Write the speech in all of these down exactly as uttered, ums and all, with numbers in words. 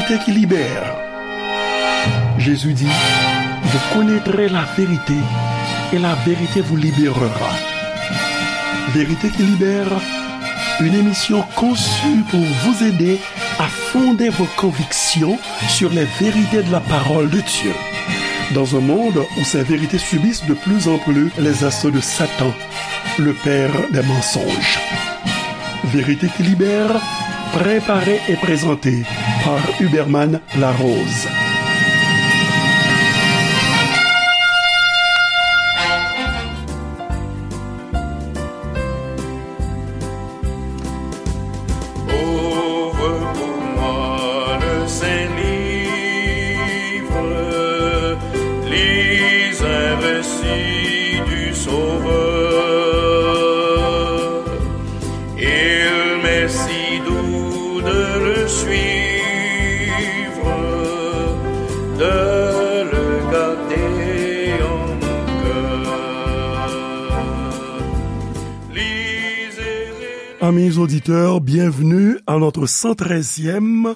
Vérité qui libère. Jésus dit, vous connaîtrez la vérité et la vérité vous libérera. Vérité qui libère, une émission conçue pour vous aider à fonder vos convictions sur les vérités de la parole de Dieu. Dans un monde où ces vérités subissent de plus en plus les assauts de Satan, le père des mensonges. Vérité qui libère, préparée et présentée par Huberman Larose. Ouvre pour moi le Saint-Livre, lis un récit du Sauveur. Il m'est si doux de le suivre, de le garder en mon cœur. Lisez et Amis auditeurs, bienvenue à notre cent treizième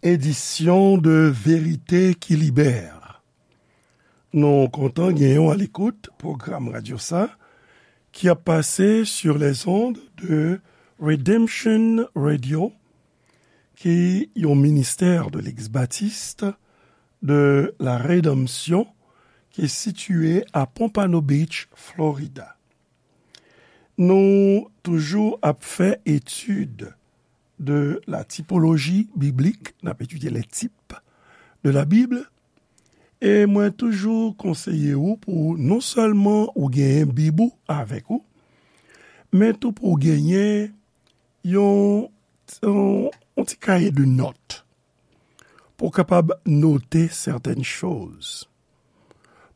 édition de Vérité qui libère. Nou kontan genyen w alekout pwogram radyo sa ki ap pase sur les ondes de Redemption Radio, ki yon ministè de Legliz Batis de la Redanmsyon ki sitiye a Pompano Beach, Florida. Nou toujou ap fè etid de la typologie biblique, n ap etidye les types de la Bible, e mwen toujou konseye w pou non sèlman ou genyen Bib ou avèk ou, men tou pou w genyen yon, yon, yon ti kaye de nòt pou w kapab note certaines choses.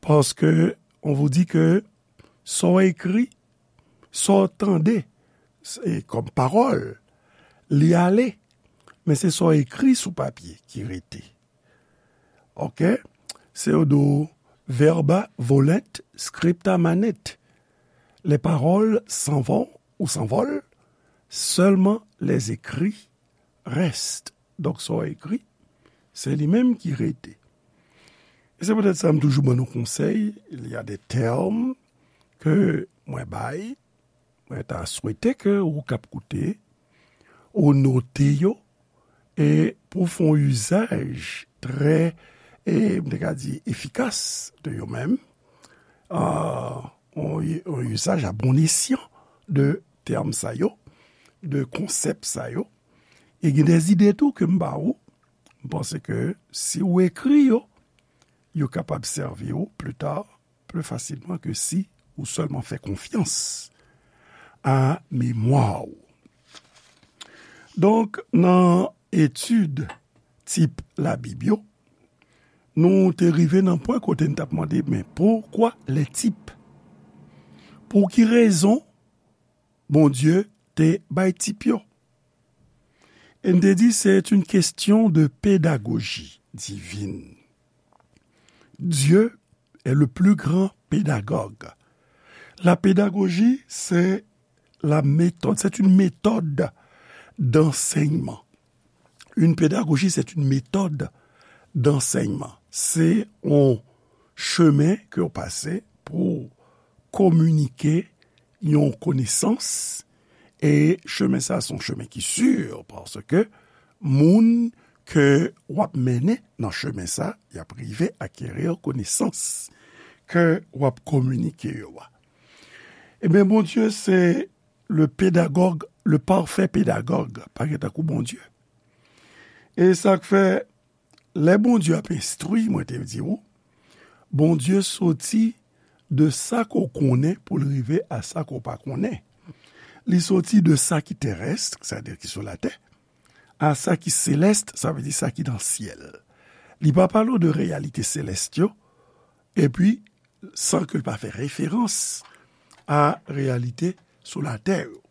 Parce que on vous dit que sa w ekri, sa w tande, e kòm pawòl, li ale, men se sa w ekri sou papye ki rete. Oke? Se yo di w, verba volant, scripta manent. Les paroles s'en vont ou s'envolent, seulement les écrits restent. Donk, sa w ekri, se li menm ki rete. E se poutèt sa m toujou ban nou konsèy, il y a des termes ke mwen bay, mwen ta swete ke ou k ap koute, ou note yo, e pou w fè yon izaj trè, e m te ka di, efikas de yo menm, a, yon, yon izaj a bon esyan de tèm sa yo, de konsèp sa yo, e gen de zide tou ke m ba ou, m panse ke si w ekri yo, yo kapab sèvi w pli ta, pli fasilman ke si ou sèlman fè konfyans a memwa w. Donk, nan etid tip Labib yo, nou te rive nan pwen kote n t ap mande, men pourquoi les types? Pou ki rezon Bondye te bay tip yo? E n te di, c'est une question de pédagogie divine. Dieu est le plus grand pédagogue. La pédagogie, c'est la méthode, c'est une méthode d'enseignement. Une pédagogie, c'est une méthode d'enseignement. Se yon chemen ke w pase pou kominike yon konesans, e chemen sa, se yon chemen ki si, paske moun ke w ap mennen nan chemen sa, y ap rive akeri konesans ke w ap kominike yo a. Ebyen, Bondye se le pédagogue, le parfait pédagogue, pa gen tankou Bondye. E sa k fè, lè Bondye ap enstwi, mwen te di w, Bondye soti de sa ke w konnen pou l rive a sa ke w pa konnen. Li soti de sa ki terès, sa vle di ki sou latè, a sa ki selès, sa vle di sa ki nan syèl. Li pa pale w de reyalite selès yo, epi san ke l pa fè referans a reyalite sou latè yo.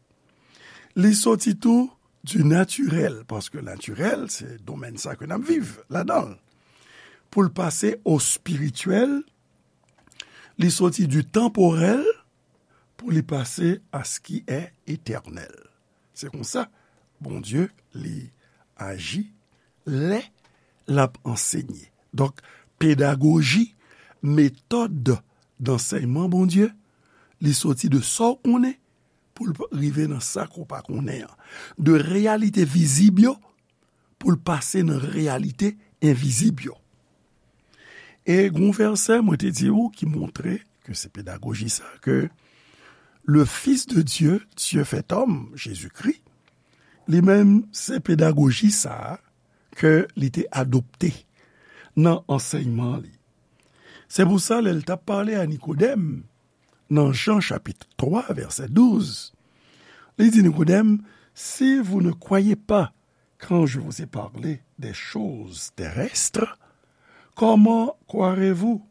Li soti tou du naturel, paske natirèl, se domèn sa ke n ap viv ladan l. Pou l pase o spirityèl, li soti du temporel pou li pase à ce qui est éternel. Se konsa, Bondye, li aji lè l ap ansenye. Donk, pedagoji, metòd dansèyman Bondye, li soti de sa w konnen pou l rive nan sa ke w pa konnen an. De reyalite vizib yo pou l pase nan reyalite envizib yo. E gen yon vèsè mwen te di w ki montre ke se pedagoji sa, ke le Fils de Dieu, Dieu fait homme, Jezikri, li menm se pedagoji sa a ke li te adopte nan ansèyman li. Se pou sa, lè l t ap pale a Nikodèm, nan Jan chapit twa, vèsè douz, li di Nikodèm, si vous ne croyez pas quand je vous ai parlé des choses terrestres, comment croirez-vous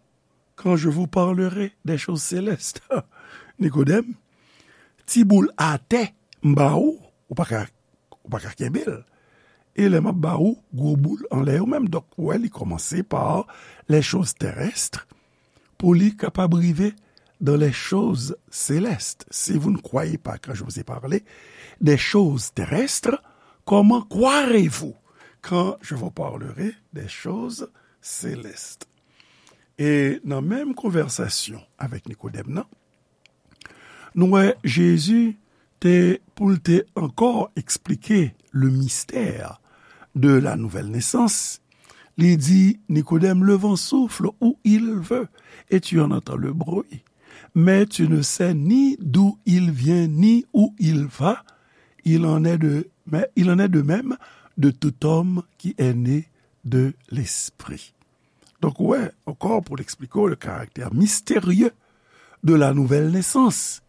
quand je vous parlerai des choses célestes? Nikodèm, ti boul atè m ba ou, ou pa ka, ou pa ka kenbe l. E lè m ap ba ou gwo boul anlè yo menm. Donk, ou wè, li kòmanse pa les choses terrestres pou li kapab rive dans les choses célestes. Si vous ne croyez pas quand je vous ai parlé des choses terrestres, comment croirez-vous quand je vous parlerai des choses célestes? E nan menm konvèsasyon avèk Nikodèm nan, nou wè Jezi te, pou l te ankò eksplike le mystère de la nouvelle naissance, li di Nikodèm, le vent souffle où il veut et tu en entends le bruit, mais tu ne sais ni d'où il vient ni où il va. Il en est de, mais il en est de même de tout homme qui est né de l'Esprit. Donk, ou wè, ankò pou l eksplike w le caractère mystérieux de la nouvelle naissance,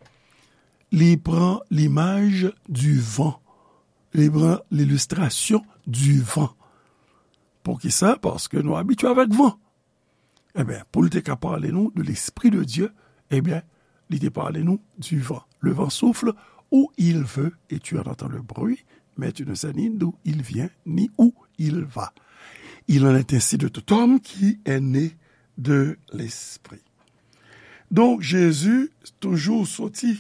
li pran limaj du vent, li pran l'illustration du vent. Poukisa? Paske nou abitye avèk van. Ebyen, pou l te ka pale nou de l'Esprit de Dieu, ebyen, li te pale nou du vent. Le vent souffle où il veut et tu en entends le bruit, mais tu ne sais ni d'où il vient ni où il va. Il en est ainsi de tout homme qui est né de l'Esprit. Donk, Jezi toujou soti,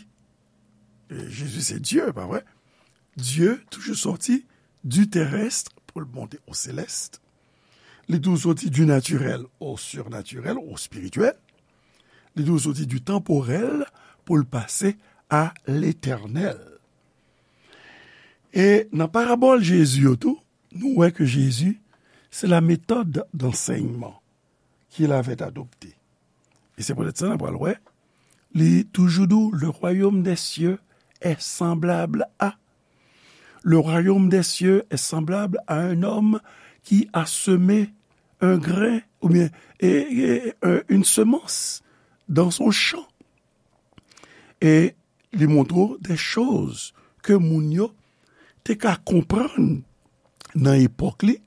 e Jezi se Dye, pa vre? Dye toujou soti du terrestre pou l monte au céleste. Li toujou soti du naturel au surnaturel, au spirituel. Li toujou soti du temporel pou l pase à l'éternel. E nan parabòl Jezi yo tou, nou wè ke Jezi, c'est la méthode d'enseignement qu'il avait adoptée. E se poutèt sa n ap pral wè, li toujou di w, le royaume des cieux est semblable à. Le royaume des cieux est semblable à un homme qui a semé un grain, oubyen, e, e, e, une semence dans son champ. E li montre w de choz ke moun yo te ka konprann nan epòk li,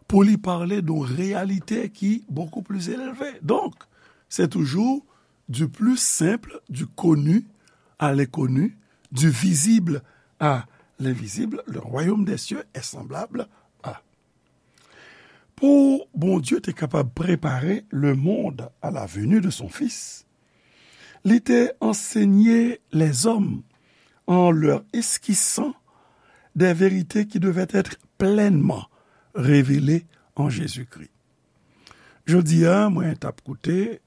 pou li pale de yon reyalite ki beaucoup plus élevé. Donk, se toujou du plus simple, du connu à l'inconnu, du visible à l'invisible, le royaume des cieux est semblable à. Pou Bondye te kapab prepare le monde à la venue de son Fils, li te ansenye lèzòm en leur esquissant des vérités qui devaient être pleinement révélées en Jésus-Christ. Jodi a, mwen t ap koute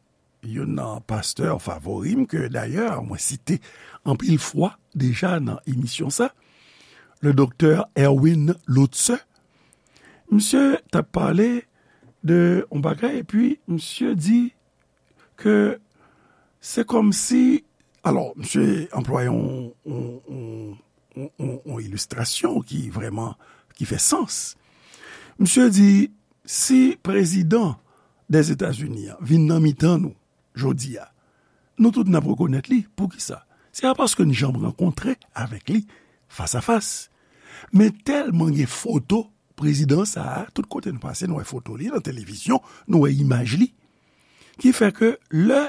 youn nan pastè favori m, ke dayè mwen site anpil fwa deja nan emisyon sa, le doktè Erwin Lutzer. Misye t ap pale de yon bagay, epi misye di ke se kòmsi, alò, misye anplwaye yon, yon, yon, yon, yon, yon ilistrasyon ki vrèman, ki fè sans. Misye di, si prezidan Dèzetazini an vin nan mitan nou jodi a, nou tout n ap rekonèt li. Poukisa? Se pa paske n janm rankontre avèk li fas a fas. Men tèlman gen foto prezidan sa a, tout kote nou pase, nou wè foto li nan televizyon, nou wè imaj li. Ki fè ke lè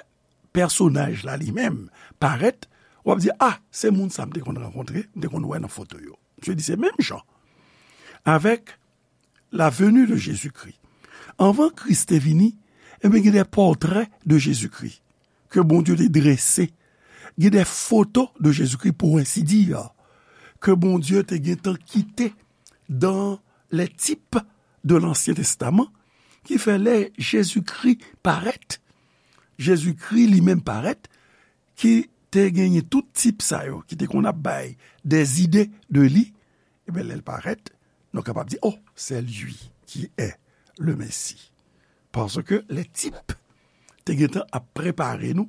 pèsonaj la li menm parèt, w ap di, a, se moun sa m te konn rankontre, m te konn wè nan foto yo. Misye di se menm jan avèk la venue de Jésus-Christ. Anvan Kris te vini, ebyen, gen de pòtrè de Jezikri ke Bondye te drese. Gen de foto de Jezikri, pour ainsi dire, ke Bondye te gentan kite dans les types de Lansyen Testaman, ki fè lè Jezikri parèt, Jezikri li menm parèt, ki te genyen tout tip sa yo, ki te konn ap bay des idées de li, ebyen, lè l parèt, nou kapab di, oh, c'est lui qui est le Messie. Paske le type te gentan ap prepare nou,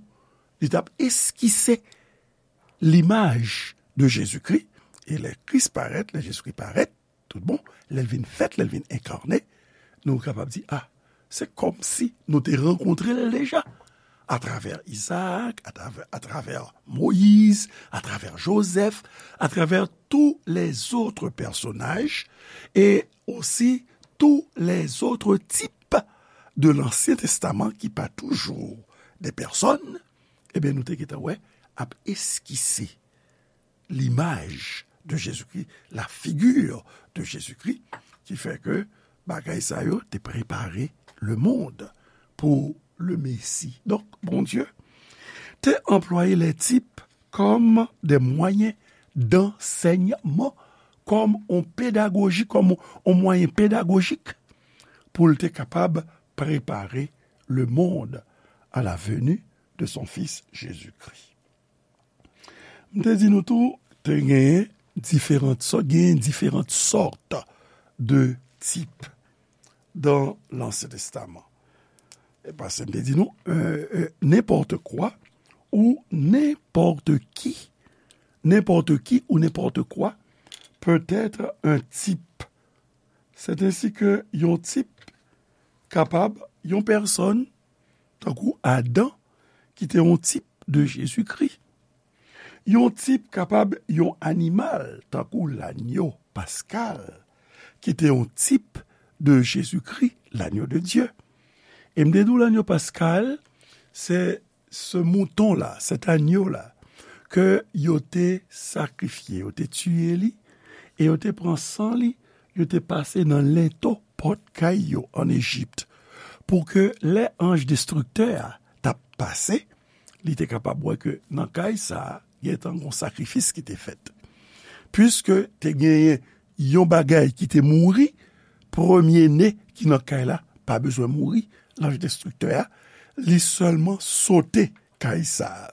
li t ap eskise limaj de Jezikri, e lè Kris parèt, lè Jezikri parèt, tout bon, lè l vin fèt, lè l vin enkane, nou kapab di, ah, se kòmsi nou te rankontre l deja. Atravè Izaak, atravè, atravè Moyiz, atravè Jozèf, atravè tous les autres personnages, e osi tous les autres types de l'Ancien Testament ki pa toujou de pèsòn, ebyen, nou te gentan wè ap eskise l'image de Jésus-Christ, la figure de Jésus-Christ, ki fè ke bagay sa yo te prepare le monde pou le Messie. Donk, Bondye te anplwaye les types comme des moyens d'enseignement, kòm on pedagoji, kòm on mwayen pedagojik pou l te kapab prepare le monde à la venue de son Fils Jésus-Christ. M te di nou tou, te genyen diferan sò-, genyen diferan sòt de tip dans l'Ancien Testament. E paske m te di nou, euh, euh, n'importe quoi ou n'importe qui, n'importe qui ou n'importe quoi peut être un type. C'est ainsi que yon tip kapab yon pèsòn, tankou Adan, ki te yon tip de Jezikri. Yon tip kapab yon animal, tankou lanyo paskal, ki te yon tip de Jezikri, lanyo de Dye. E m te di w lanyo paskal, se ce mouton-là, cet agneau-là, ke yo te sakrifye, yo te tiye li, e yo te pran san li, yo te pase nan lento pòt kay yo ann Ejip, pou ke lè anj destriktè a t ap pase, li te kapab wè ke nan kay sa a, gentan gon sakrifis ki te fèt. Piske te genyen yon bagay ki te mouri, premye ne ki nan kay la pa bezwen mouri, lanj destriktè a, li sèlman sote kay sa a.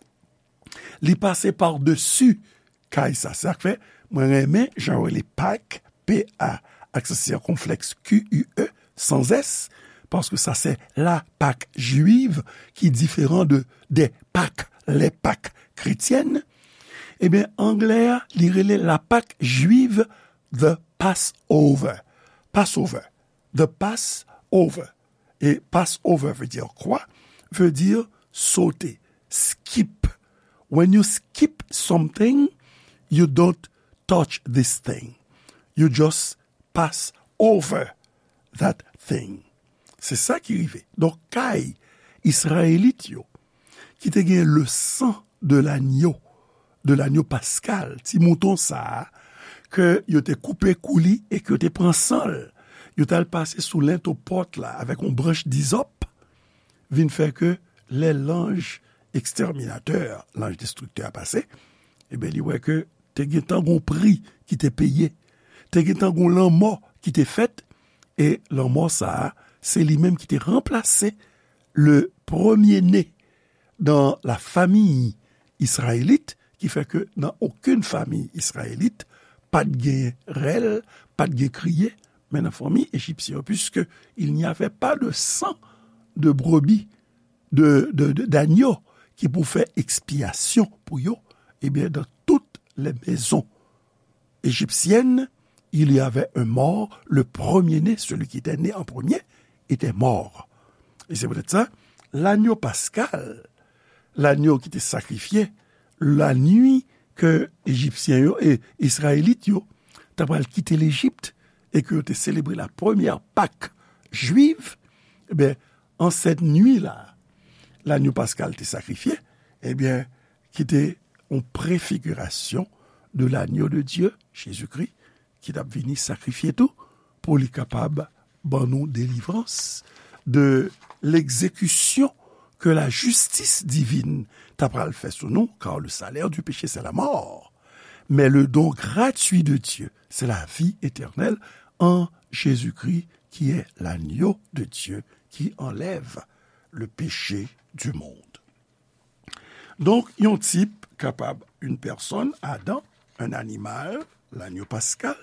Li pase padesi kay sa. Se sa k fè mwen renmen jan yo rele Pak, P A, aksan sikonflèks, Q U E, sans S, paske sa se la Pâque juive ki diferan de, des Pâques, les Pâques chrétiennes. Ebyen, anglè a, li rele la Pâque juive the Passover. Passover. The Passover. E Passover veut dire quoi? Veut dire sauter, skip. When you skip something, you don't touch this thing. You just pass over that thing. Se sa ki rive. Donk, kay Izrayelit yo, ki te gen le sang de l'agneau, de l'agneau pascal, ti mouton sa a, ke yo te koupe kou li e ke yo te pran san l, yo t al pase sou lento pòt la avèk yon branch dizòp, vin fè ke lè lanj ekstèminatè, lanj destriktè a pase, ebyen, li wè ke te gentan gon pri ki te peye, te gentan gon lanmò ki te fèt, e lanmò sa a, se li menm ki te ranplase le premye ne dans la famille israélite, ki fè ke nan okenn fanmi izrayelit, pa t gen rèl, pa t gen kriye, men nan fanmi ejipsyen yo, puisque il n'y avait pas de sang de brebis, de, de, de, d'agneau ki pou fè ekspyasyon pou yo, ebyen, dans toutes les maisons égyptiennes, il y avait un mort, le premier-né, celui qui était né en premier, était mort. Et c'est peut-être ça, l'agneau pascal, lanyo ki te sakrifye, lanwi ke Ejipsyen yo e Izrayelit yo ta pral kite Lejip e ke yo te selebre la premyè Pak jwif, ebyen, an sèt nwi la, lanyo paskal te sakrifye, ebyen, ki te yon prefigirasyon de lanyo de Dye, Jezikri, ki t ap vini sakrifye tou, pou li kapab ban nou delivrans de l'exécution que la justice divine ta pral fè sou nou, car le salaire du péché, c'est la mort. Mais le don gratuit de Dieu, c'est la vie éternelle en Jésus-Christ, qui est l'agneau de Dieu qui enlève le péché du monde. Donk, yon tip kapab une personne, Adam, un animal, l'agneau pascal.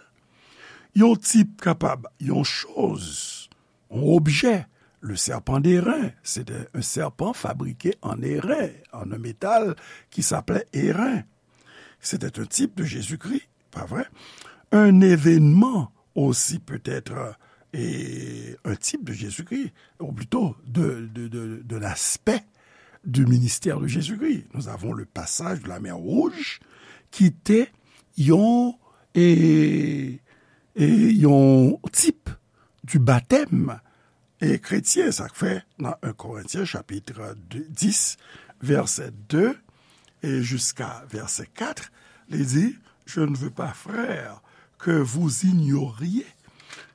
Yon tip kapab yon choz, yon objè, le serpent d'airain, c'était un serpent fabriqué en airain, en un métal qui s'appelait airain. C'était un type de Jésus-Christ, pas vrai? Un événement aussi peut-être, et un type de Jésus-Christ, ou plutôt de, de, de, de l'aspect du ministère de Jésus-Christ. Nous avons le passage de la mer Rouge qui était yon, et, et yon type du baptême e kretyen, sa k fè nan un Korentyen chapit dis, vèsè de e jiska vèsè kat, li di, Je ne veux pas, frères, que vous ignoriez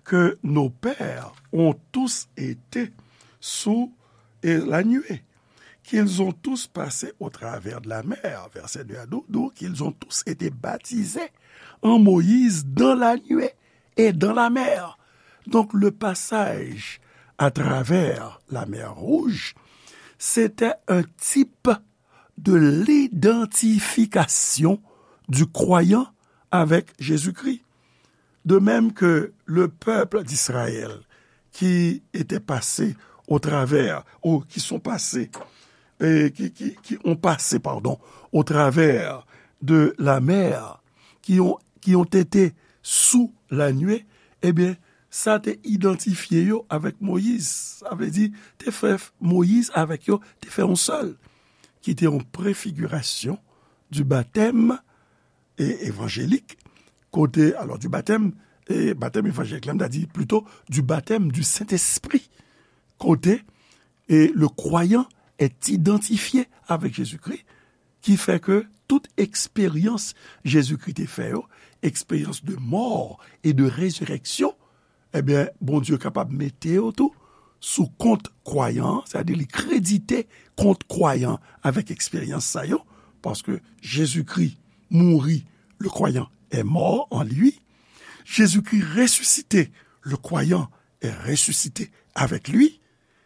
que nos pères ont tous été sous la nuée, qu'ils ont tous passé au travers de la mer, verset deux à douze, qu'ils ont tous été baptisés en Moïse dans la nuée et dans la mer. Donc, le passage à travers la mer Rouge, c'était un type de l'identification du croyant avec Jésus-Christ. De même que le peuple d'Israël qui était passé au travers, ou qui sont passés, et qui, qui, qui ont passé, pardon, au travers de la mer, qui ont, qui ont été sous la nuée, ebyen, sa te idantifye yo avèk Moyiz. Sa vle di, te fè Moyiz avèk yo, te fè yon sèl, ki te yon prefigirasyon du baptême e, évangélique, kote, alors, du baptême, e baptême évangélique, la, m ta di plutôt du baptême du Saint-Esprit, kote, e le croyant est identifié avec Jésus-Christ, ki fè ke tout eksperyans Jezikri te fè yo, eksperyans de mò e de rezirèksyon, ebyen, Bondye kapab mete yo tou sou kont kwayan an, sètadi li kredite kont kwayan avèk eksperyans sa yo, paske Jezikri mouri, le croyant est mort en lui. Jésus-Christ ressuscité, le croyant est ressuscité avec lui.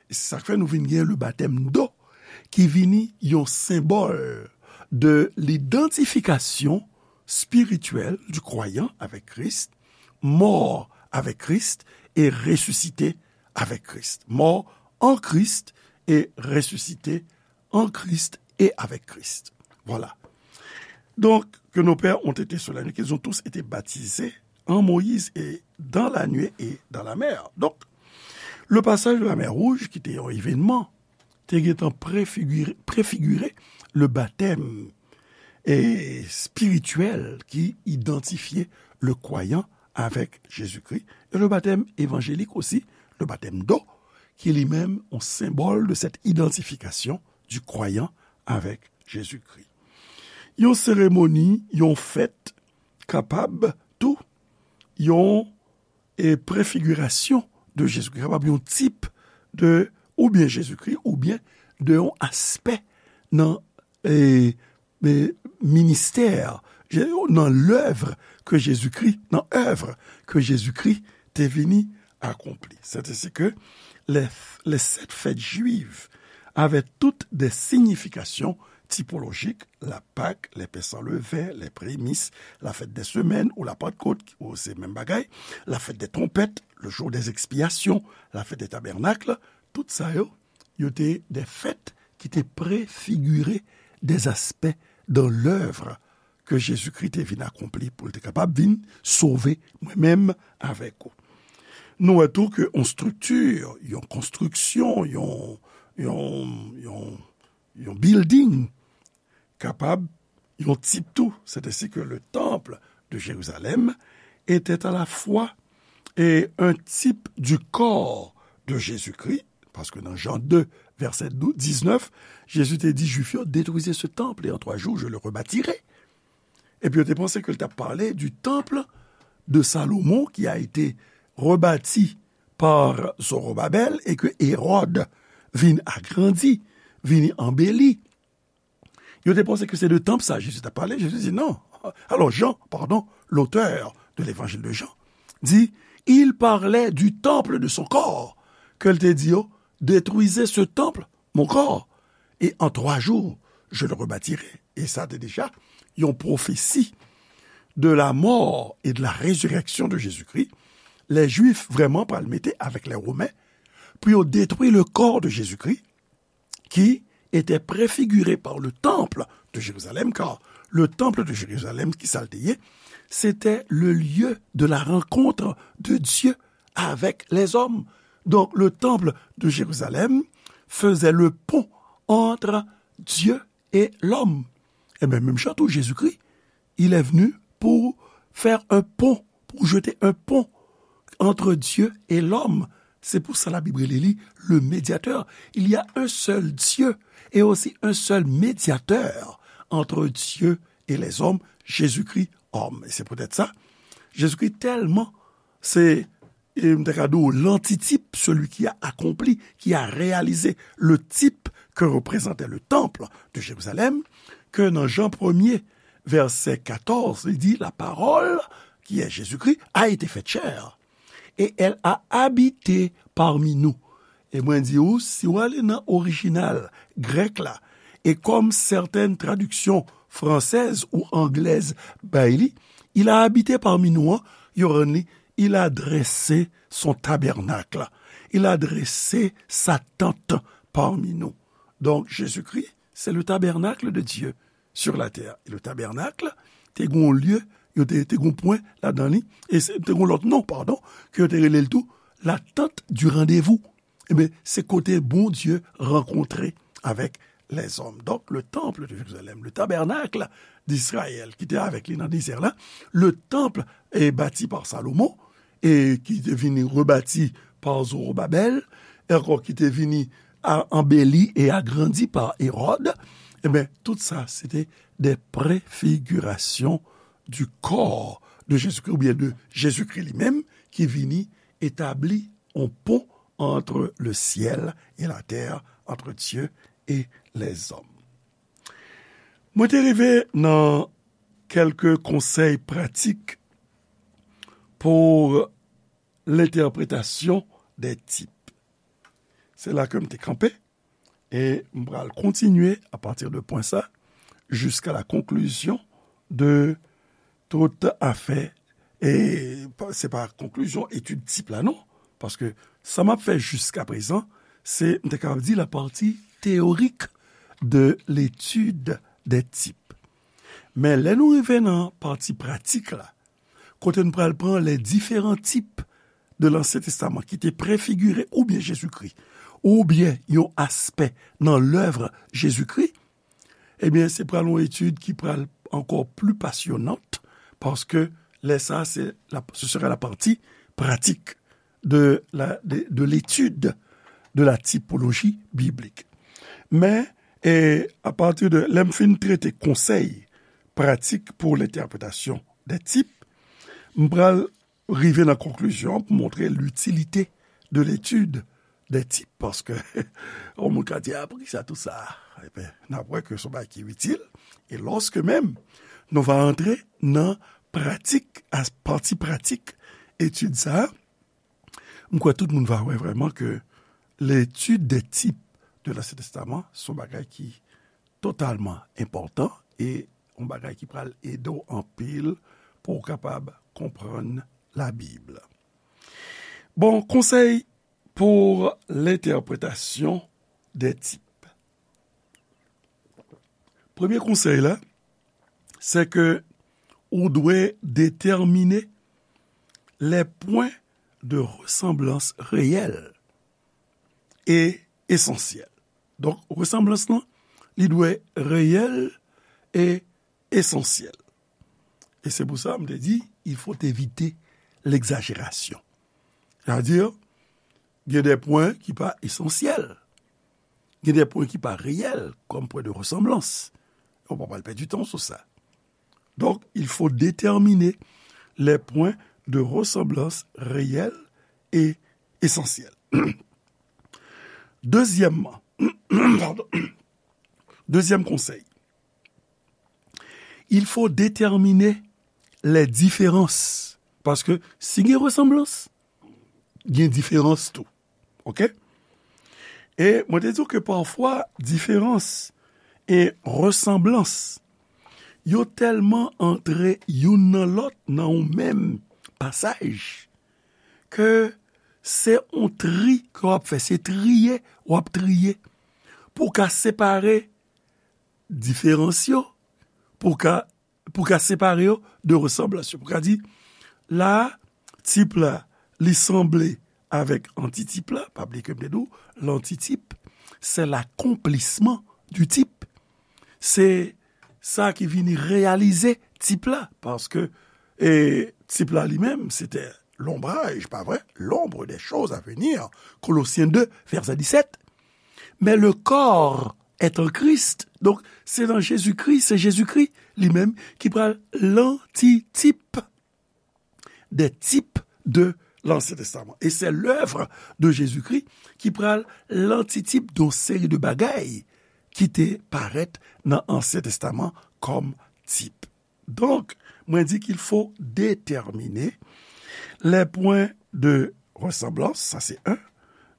E se sa k fè nou vin gen le baptême d'eau, ki vini yon senbòl de lidantifikasyon spirityèl du croyant avec Christ, mort avec Christ et ressuscité avec Christ. Mort en Christ et ressuscité en Christ et avec Christ. Voilà. Donc, que nos pères ont été sous la nuée, qu'ils ont tous été baptisés en Moïse et dans la nuée et dans la mer. Donc, le passage de la mer Rouge, ki te yon evènman, te gentan prefigire, prefigire le baptême e spirityèl ki idantifye le kwayan avèk Jezikri, e le baptême évangélique aussi, le baptême d'eau, ki li menm yon senbòl de cette identification du croyant avec Jésus-Christ. Yon seremoni, yon fèt, kapab tou yon e prefigirasyon de Jezikri, kapab yon tip de, oubyen Jezikri, oubyen de yon aspè nan, e, e, ministè, Je-, nan lèv ke Jezikri, nan èv ke Jezikri te vini akonpli. C'est ainsi que les, les sept fêtes juives avaient toutes des significations typologiques, la Pâque, les pains sans levain, les prémices, la fête des semaines ou la Pentecôte, ou se menm bagay, la fête des trompettes, le jour des expiations, la fête des tabernacles, tout sa yo, yo te de fèt ki te prefigire des aspects dans l'œuvre ke Jezikri te vin akonpli pou l te kapab vin sove mwen menm avèk ou. Nou wè tou ke yon estrikti, yon konstriksyon, yon, yon, yon, yon building kapab yon tip tou, c'est ainsi que le temple de Jérusalem était à la fois et un type du corps de Jésus-Christ, paske nan Jan de, vèsè diznèf, Jezi te di Jwif yo, Détruisez ce temple et en trois jours je le rebâtirai. Epi yo te panse ke l t ap pale du temple de Salomon qui a été rebâti par Zorobabel et que Hérode vin agrandi, vin anbeli. Yo te panse ke se de tanp sa Jezi t ap pale. Jezi di non. Alors Jean, pardon, l'auteur de l'évangile de Jean, dit Il parlait du temple de son corps, ke l te di yo, détruisez ce temple, mon corps, et en trois jours, je le rebâtirai. E sa te deja yon pwofesi de la mort et de la résurrection de Jésus-Christ. Lè Jwif vrèman pral mete avèk lè Women pou yo detwi le corps de Jésus-Christ, qui était préfiguré par le temple de Jérusalem, car le temple de Jérusalem, ki sa l te ye, c'était le lieu de la rencontre de Dieu avec les hommes. Donc, le temple de Jérusalem faisait le pont entre Dieu et l'homme. Et bien, même chose pour Jésus-Christ, il est venu pour faire un pont, pour jeter un pont entre Dieu et l'homme. C'est pour ça la Bible dit, le médiateur. Il y a un seul Dieu et aussi un seul médiateur entre Dieu et les hommes, Jésus-Christ homme. Et c'est peut-être ça. Jésus-Christ tellement, c'est, et m ta ka di w, l'antitype, celui qui a accompli, qui a réalisé le type que représentait le temple de Jérusalem, que dans Jean premier, verset quatorze, il dit, la parole, qui est Jésus-Christ, a été faite chair. Et elle a habité parmi nous. E mwen di ou, si w ale nan orijinal grèk la, e kòm sètèn tradiksyon fransèz ou anglèz bay li, il a habité parmi nous an, yo rann li, il a dressé son tabernacle. Il a dressé sa tente parmi nous. Donc, Jésus-Christ, c'est le tabernacle de Dieu sur la terre. E le tabernacle, te gon lye, yo te, te gon pwen ladan li, e se, te gon lòt non, padon, ke yo te rele l tou, la tente du rendez-vous. Ebyen, se kote Bondye rankontre avèk lèzòm. Donk, le temple de Jérusalem, le tabernacle d'Israël, ki te avèk li nan dezè la, le temple est bâti par Salomon, e ki te vini rebati pa Zorobabèl, e ankò ki te vini a-, anbeli e agrandi pa Ewòd, ebyen, tout sa, se te de prefigirasyon du corps de Jésus-Christ, oubyen de Jezikri li menm, ki vini etabli yon pon entre le ciel et la terre, entre Dieu et les hommes. Mwen te rive nan kèlke konsèy pratik pou lentèpretasyon de tip. Se la ke m te kanpe, e m pral kontinye apati de pwen sa, jiska la konklisyon de tout afè. E pa, se pa konklizyon etid tip la, non. Paske sa m ap fè jiska prezan, se, m te kapab di, la partie théorique de l'étude des types. Men lè nou rive nan pati pratik la, kote n pral pran les différents types de l'Ancien Testament ki te prefigire oubyen Jezikri, oubyen yon aspè nan lèv Jezikri, ebyen, se pral yon etid ki pral ankò pli pasyonant, paske lè sa, se la, ce sera la partie pratique de la, de, de l'étude de la typologie biblique. Men, e, apati de lè m fin trete konsèy pratik pou lentèpretasyon de tip, m pral rive nan konklisyon pou montre l'utilité de l'étude des types, paske yon moun ka di, "Ah, poukisa tout sa?" Ebyen, n ap wè ke se yon bagay ki itil, e lòske menm nou va antre nan pratik, a, pati pratik etid sa a, m kwè tout moun va wè vrèman ke l'étude des types de l'Ancien Testament se yon bagay ki totalman enpòtan e yon bagay ki pral ede w anpil pou w kapab konprann Labib. Bon, konsèy pou lentèpretasyon de tip. Premye konsèy la, se ke ou dwe detèmine les points de ressemblance réels et essentiels. Donk, resanblans lan, li dwe reyèl e esansyèl. E se pou sa, m te di, il faut éviter l'exagération. Sa vle di, gen de pwen ki pa esansyèl. Gen de pwen ki pa reyèl, kòm pwen de resanblans. Ou pa pral pèdi tan sou sa. Donc, il faut déterminer les points de ressemblance réels et essentiels. Deuxièmement, pardon, deuxième conseil, il faut déterminer les différences. Paske si gen resanblans, gen diferans tou. Oke? E mwen te di w ke pafwa diferans e resanblans, yo tèlman antre youn nan lòt nan yon menm pasaj, ke se yon tri ke w ap fè, se triye w ap triye pou w ka separe diferans yo, pou w ka, pou w ka separe yo de resanblans yo. Pou w ka di, la, tip la, li sanble avèk antitip la, pa bliye ke m te di w, lantitip, se l'accomplissement du type. Se sa ki vini reyalize tip la, paske, e, tip la li menm, se te l'ombrage, pa vre? L'ombre des choses à venir, Kolosyen de, vèsè disèt. Mais le corps est en Christ. Donk, se nan Jezikri, se Jezikri li menm ki pral lantitip des types de l'Ancien Testament. E se lèv de Jezikri ki pral lantitip de yon seri de bagay ki te parèt nan Ansyen Testaman kòm tip. Donk, mwen di qu'il faut déterminer les points de ressemblance, sa se en.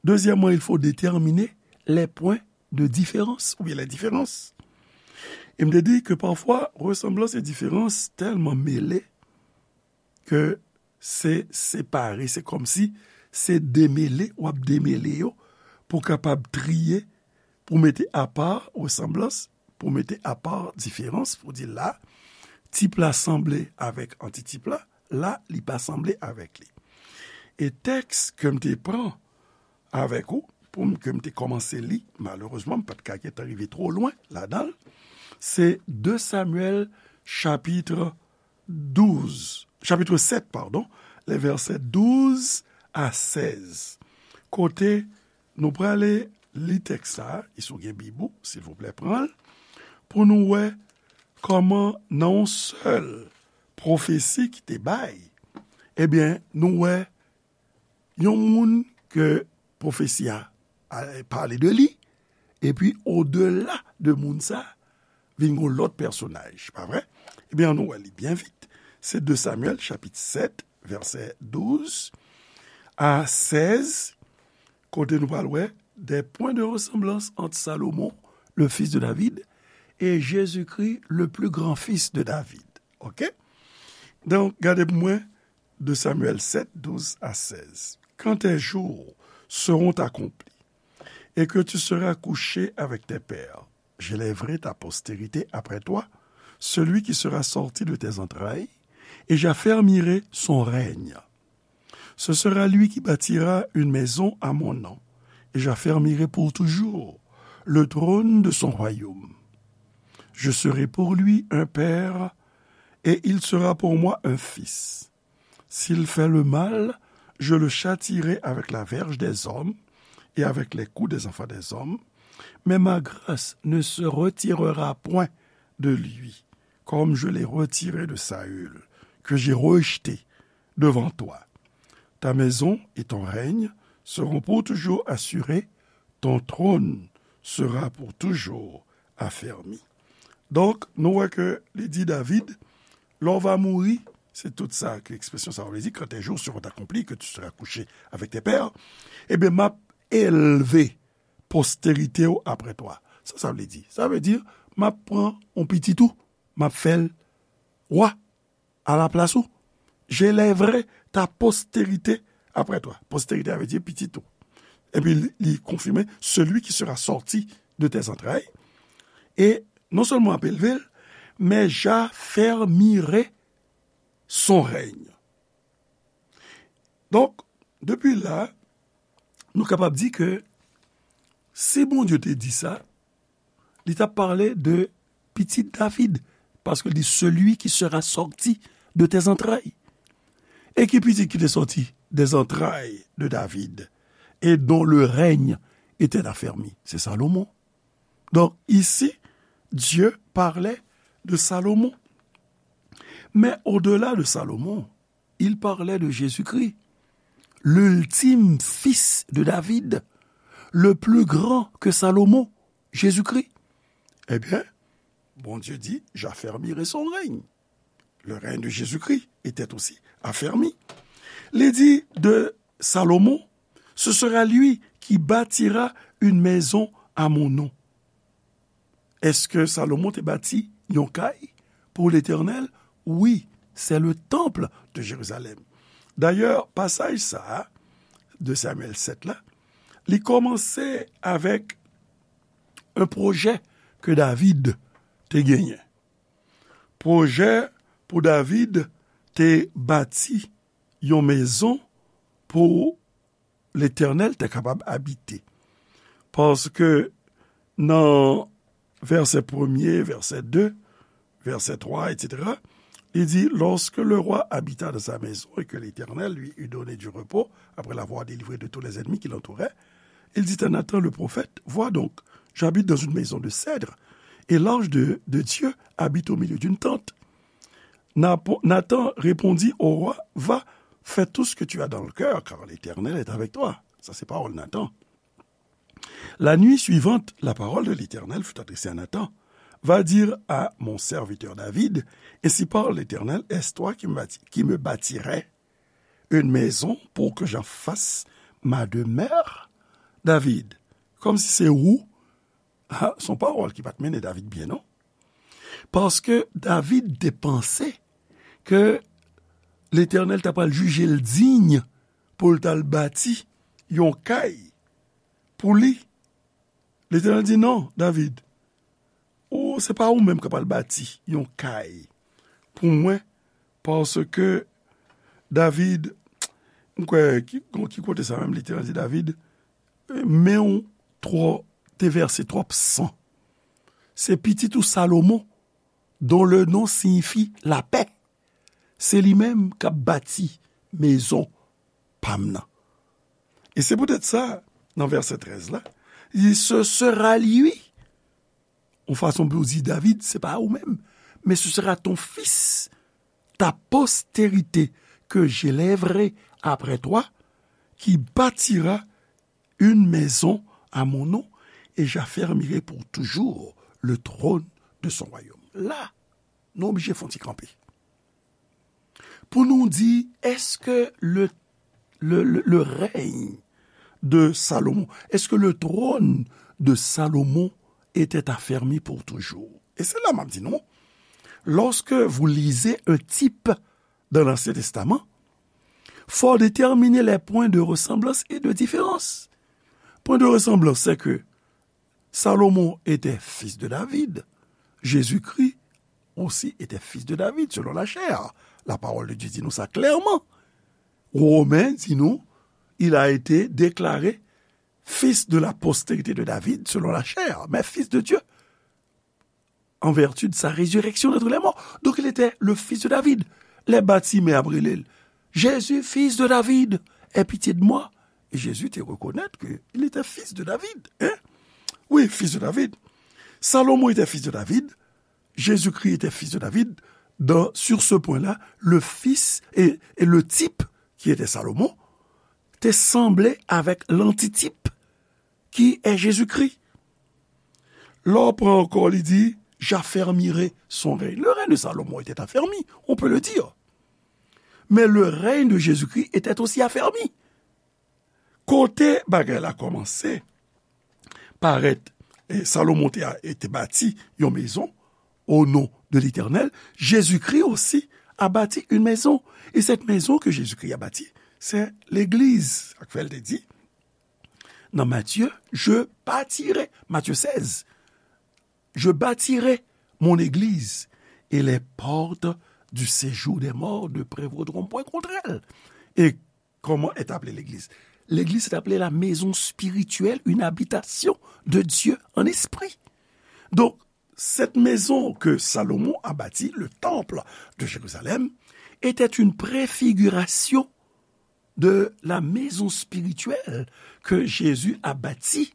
Dezyèmman, il faut déterminer les points de différence, oubyen les différences. E m te di ke pafwa, resanblans e diferans tèlman mele ke se separe, se kòmsi se demele, w ap demele yo pou w kapab triye, pou w mete apa resanblans, pou w mete apa diferans, pou w di la, tip la sanble avèk antitip la, la, li pa sanble avèk li. E tèks ke m te pran avèk ou, pou m, ke m te kòmanse li, malerezman, m pa t ka gentan rive twò lwen ladan l, se de Samyèl chapit douz, chapit sèt, padon, les versets douze à seize. Kote nou prale li tèks sa a, e si w gen Bib ou, silvouplè, pran l, pou nou wè kòman nan yon sèl pwofesi ki te bay, ebyen, nou wè yon moun ke pwofesi a, a pale de li, epi odela de moun sa, vin yon lòt pèsonaj, pa vre? Ebyen, ann nou wè li byen vit. Se de Samyèl, chapit sèt, vèsè douz a sèz, kote nou pral wè des points de ressemblance entre Salomon, le fils de David, et Jésus-Christ, le plus grand fils de David. Oke? Donk, gade pou mwen, de Samyèl sèt, douz a sèz. Quand tes jours seront accomplis et que tu seras couché avec tes pères, j'élèverai ta postérité après toi, celui qui sera sorti de tes entrailles, et j'affermirai son règne. Ce sera lui qui bâtira une maison à mon nom, et j'affermirai pour toujours le trône de son royaume. Je serai pour lui un père, et il sera pour moi un fils. S'il fait le mal, je le châtierai avec la verge des hommes et avec les coups des enfants des hommes, mais ma grâce ne se retirera point de lui, comme je l'ai retiré de Saül, que j'ai rejeté devant toi. Ta maison et ton règne seront pour toujours assurés, ton trône sera pour toujours affermi. Donk, nou wè ke li di David, lè w va mouri, se tout sa ke ekspresyon sa a vle di, quand tes jours seront accomplis, que tu seras couché avec tes pères, ebyen, m ap elve posterite w apre twa. Sa sa vle di? Sa vle di, m ap pran yon pitit ou, m ap fè l wa alaplas ou. J'élèverai ta postérité après toi. Postérité, sa vle di pitit ou. Epi li, li konfime, celui qui sera sorti de tes entrailles. E non sèlman m ap elve l, men j'affermirai son règne. Donk, depi la, nou kapab di ke si Bondye te di sa, li t ap pale de pitit David, paske li di, celui qui sera sorti de tes entrailles. E ki pitit ki te sòti des entrailles de David, et dont le règne était affermi? Se Salomon. Donc, ici, Dieu parlait de Salomon. Mais au-delà de Salomon, il parlait de Jésus-Christ, l'ultime fils de David, le plus grand que Salomon, Jésus-Christ. Eh bien, Bondye di, j'affermirai son règne. Le règne de Jésus-Christ était aussi affermi. Li di de Salomon, ce sera lui qui bâtira une maison à mon nom. Èske Salomon te bati yon kay pou Letènèl? Wi, c'est le temple de Jérusalem. Dayè, pasaj sa a, de Samyèl sèt la, li kòmanse avèk yon pwojè ke David te genyen. Pwojè pou David te bati yon mezon pou Letènèl te kapab abite. Paske nan vèsè premye, vèsè de, vèsè twa, etsetera, li di, lorsque le roi habita dans sa maison et que l'Éternel lui eut donné du repos, après l'avoir délivré de tous les ennemis qui l'entouraient, il dit à Nathan le prophète, vois donc, j'habite dans une maison de cèdre, et l'ange de, de Dieu habite au milieu d'une tente. Napo- Nathan répondit au roi, va, fais tout ce que tu as dans le cœur, car l'Éternel est avec toi. Ça, c'est parole Nathan. La nuit suivante, la parole de l'Éternel fut adressée à Nathan. Va dire à mon serviteur David, ainsi parle l'Éternel, est-ce toi qui me bâti- qui me bâtirais une maison pour que j'en fasse ma demeure? David, kòmsi se ou, ha, se yon pawòl ki pa t mennen David byen, non. Paske David te panse ke Letènèl ta pral jije l diy pou l t al bati yon kay pou li. Letènèl di, non, David, ou, se pa ou menm k ap al bati yon kay pou mwen, paske David, m kwè, ki, ki kote sa menm, Letènèl di David, men w twò, te vèse twòp san. Se pitit ou Salomon, dont le nom signifie la paix. Se li menm k ap bati mezon pa m nan. E se poutèt sa, nan vèsè trèz la, li di, ce sera lui. Yon fason pou di David, se pa ou menm, mais ce sera ton fils, ta postérité que j'élèverai après toi, qui bâtira une maison à mon nom, et j'affermirai pour toujours le trône de son royaume. La, nou oblije fè yon ti kanpe. Pou nou di, èske le, le, le, le règne de Salomon, est-ce que le trône de Salomon était affermi pour toujours? E se la m ap di nou, lorsque vous lisez un type dans l'Ancien Testament, faut déterminer les points de ressemblance et de différence. Point de ressemblance, c'est que Salomon était fils de David. Jésus-Christ aussi était fils de David, selon la chair. La parole de Dieu dit nous ça clairement. Romain dit nous, il a été déclaré fils de la postérité de David, selon la chair, mais fils de Dieu en vertu de sa résurrection d'entre les morts. Donc il était le fils de David. Lè Batimè ap rele l, Jésus, fils de David, aie pitié de moi. E Jezi te rekonèt ke il était fils de David. Hein? Oui, fils de David. Salomon était fils de David. Jésus-Christ était fils de David. Dans, sur ce point-là, le fils et, et le type qui était Salomon te sanble avec l'antitype qui est Jésus-Christ. Lè w pran ankò, li di, j'affermirai son règne. Le règne de Salomon était affermi, on peut le dire. Mais le règne de Jésus-Christ était aussi affermi. Kote bagay la kòmanse parèt, e Salomon te, te bati yon mezon au nom de l'Éternel, Jésus-Christ aussi a bâti une maison. Et cette maison que Jésus-Christ a bâtie, c'est l'église. Sa k fè l te di, nan Matthieu, je bâtirai, Matthieu seize, je bâtirai mon église et les portes du séjour des morts ne prévaudront point contre elle. Et comment est appelée l'église? L'église est appelée la maison spirituelle, une habitation de Dieu en esprit. Donc, cette maison que Salomon a bâtie, le temple de Jérusalem, était une préfiguration de la maison spirituelle que Jésus a bâtie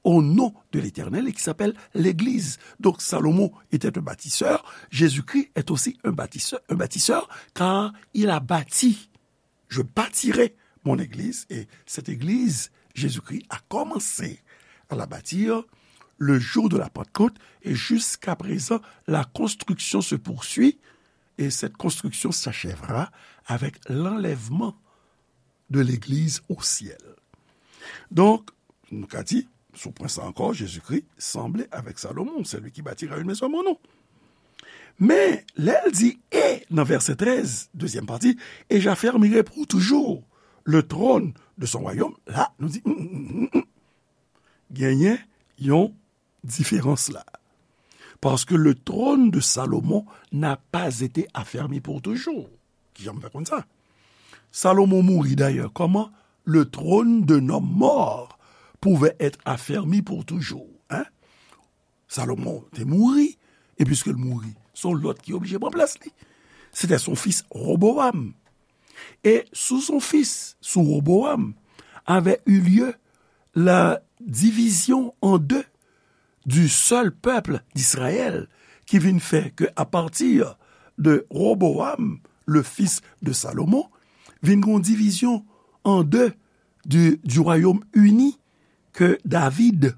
au nom de l'Éternel et qui s'appelle l'Église. Donc Salomon était un bâtisseur, Jésus-Christ est aussi un bâtisseur, un bâtisseur, car il a bâti, je bâtirai mon église, et cette église, Jésus-Christ a commencé à la bâtir le jour de la Pentecôte, et jusqu'à présent, la construction se poursuit, et cette construction s'achèvera avec l'enlèvement de l'Église au ciel. Donk, nou ka di, sou pwen sa ankò, Jezikri sanble avèk Salomon, celui qui bâtira une maison à mon nom. Men, lè l di, e, nan vèsè trèz, dezyèm pati, et j'affermirai pour toujours le trône de son royaume, la, nou di, mm, mm, mm, mm, mm. Genyen yon diferans la. Parce que le trône de Salomon n'a pas été affermi pour toujours. Kijan m fè konn sa? Salomon mouri dayè. Comment le trône d'un homme mort pouvait être affermi pour toujours? Hein? Salomon te mouri, e piske l mouri, se yon lòt ki oblije pran plas li. C'était son fils Roboam. Et sous son fils, sous Roboam, avait eu lieu la division en deux du seul peuple d'Israël, ki vin fè ke à partir de Roboam, le fils de Salomon, vin gon divizyon an de du, du royaume uni ke David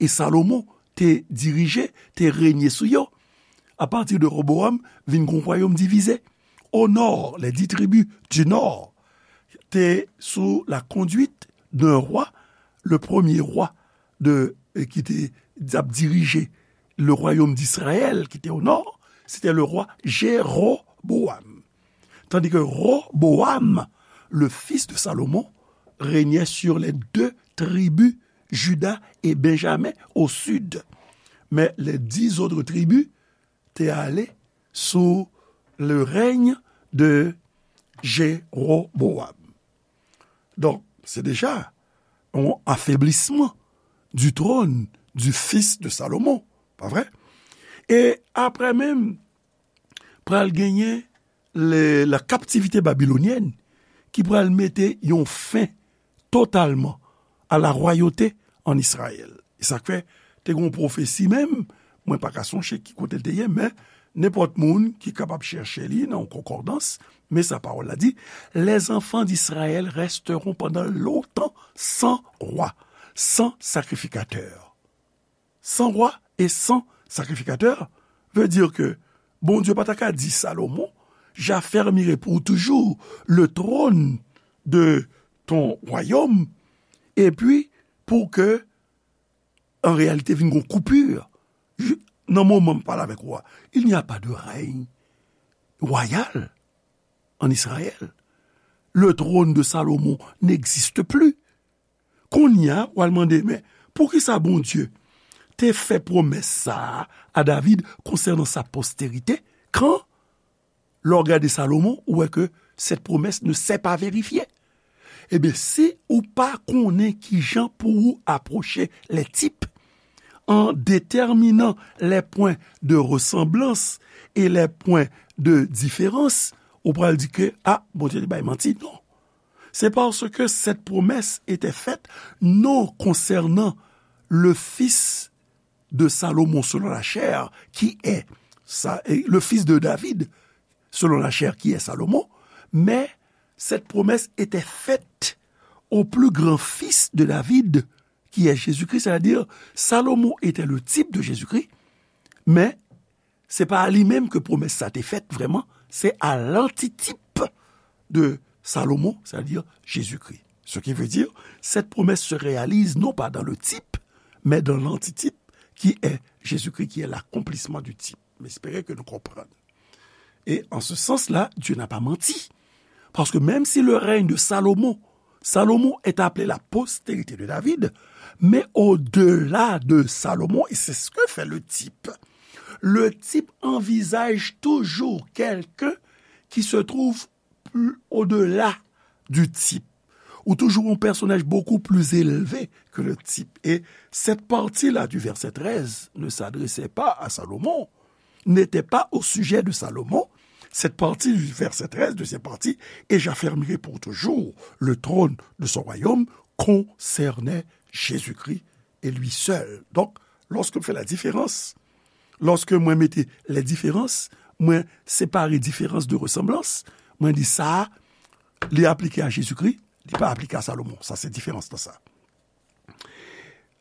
e Salomon te dirije, te renye sou yo. Apati de Roboam, vin gon wayòm divize. Au nord, les dix tribus du nord te sous la conduite d'un roi, le premier roi de, ki te ap dirije le royaume d'Israël, ki te au nord, c'était le roi Jéroboam. Tandis que Roboam, le fils de Salomon, régnait sur les deux tribus, Juda et Benjamin, au sud. Mais les dix autres tribus te ale sous le règne de Jéroboam. Donk, se deja yon afeblisman du trône du fils de Salomon, pa vre? E apre menm, pral genyen le, la captivité babylonienne ki pral mete yon fen totalman a la royauté en Israël. E sa k fè, te gen yon pwofesi menm, mwen pa ka sonje ki kote l te ye, men nenpòt moun ki kapab chèche li nan yon konkòdans, men sa pawòl la di, les enfants d'Israël resteront pendant longtemps sans roi, sans sacrificateur. Sans roi et sans sacrificateur veut dire que Bondye pa ta ka di Salomon, j'affermirai pour toujours le trône de ton royaume, epi pou ke, an reyalite, vin gon koupi. Nan moman m pale avèk ou a, il n'y a pas de règne royal en Israël. Le trône de Salomon n'existe plus. Kounye a, w al mande, men poukisa Bondye te fè pwomès sa a a David konsènan sa posterite, kan, lè w gade Salomon, ou wè ke cette promesse ne s'est pas vérifiée? Ebyen, si ou pa konnen kijan pou ou apwoche les types, en déterminant les points de ressemblance et les points de différence, ou pral di ke, a, Bondye te bay manti. Non. C'est parce que cette promesse était faite non concernant le fils de Salomon selon la chair, qui est Sa-, et le fils de David selon la chair, qui est Salomon, mais cette promesse était faite au plus grand fils de David, qui est Jésus-Christ, c'est-à-dire Salomon était le type de Jésus-Christ, men se pa a li menm ke pwomès sa te fèt vrèman, se a lantitip de Salomon, c'est-à-dire Jésus-Christ. Ce qui veut dire, cette promesse se réalise non pas dans le type, mais dans l'antitype, qui est Jésus-Christ, qui est l'accomplissement du type. M espere ke nou konprann. Et en ce sens-là, Dieu n'a pas menti. Parce que même si le règne de Salomon, Salomon est appelé la postérité de David, mais au-delà de Salomon, et c'est ce que fait le type, le type envisage toujours quelqu'un qui se trouve plus au-delà du type, ou toujours un personnage beaucoup plus élevé que le type. Et cette partie-là du verset treize ne s'adressait pas à Salomon, n'était pas au sujet de Salomon. Cette partie du verset treize, deuxième partie, et j'affermirai pour toujours le trône de son royaume, concernait Jésus-Christ et lui seul. Donc, lorsque je fais la différence, lorsque mwen mete les différences, mwen separe diferans de ressemblance, mwen di sa a, li aplike a Jezikri, li pa aplike a Salomon. Sa se diferans nan sa.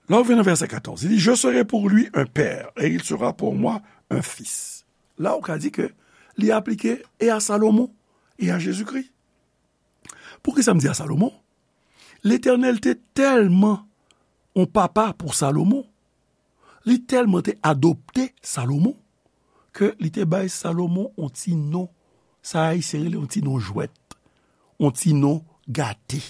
Lè w vin nan vèsè katòz, li di, je serai pour lui un père, et il sera pour moi un fils. La ou ka di ke li aplike e a Salomon, e a Jezikri. Poukisa m di a Salomon? Letènèl te tèlman yon papa pou Salomon, li tèlman te adopte Salomon, ke li te bay Salomon yon ti non, sa Ayisyen rele yon ti non jwèt, yon ti non gate,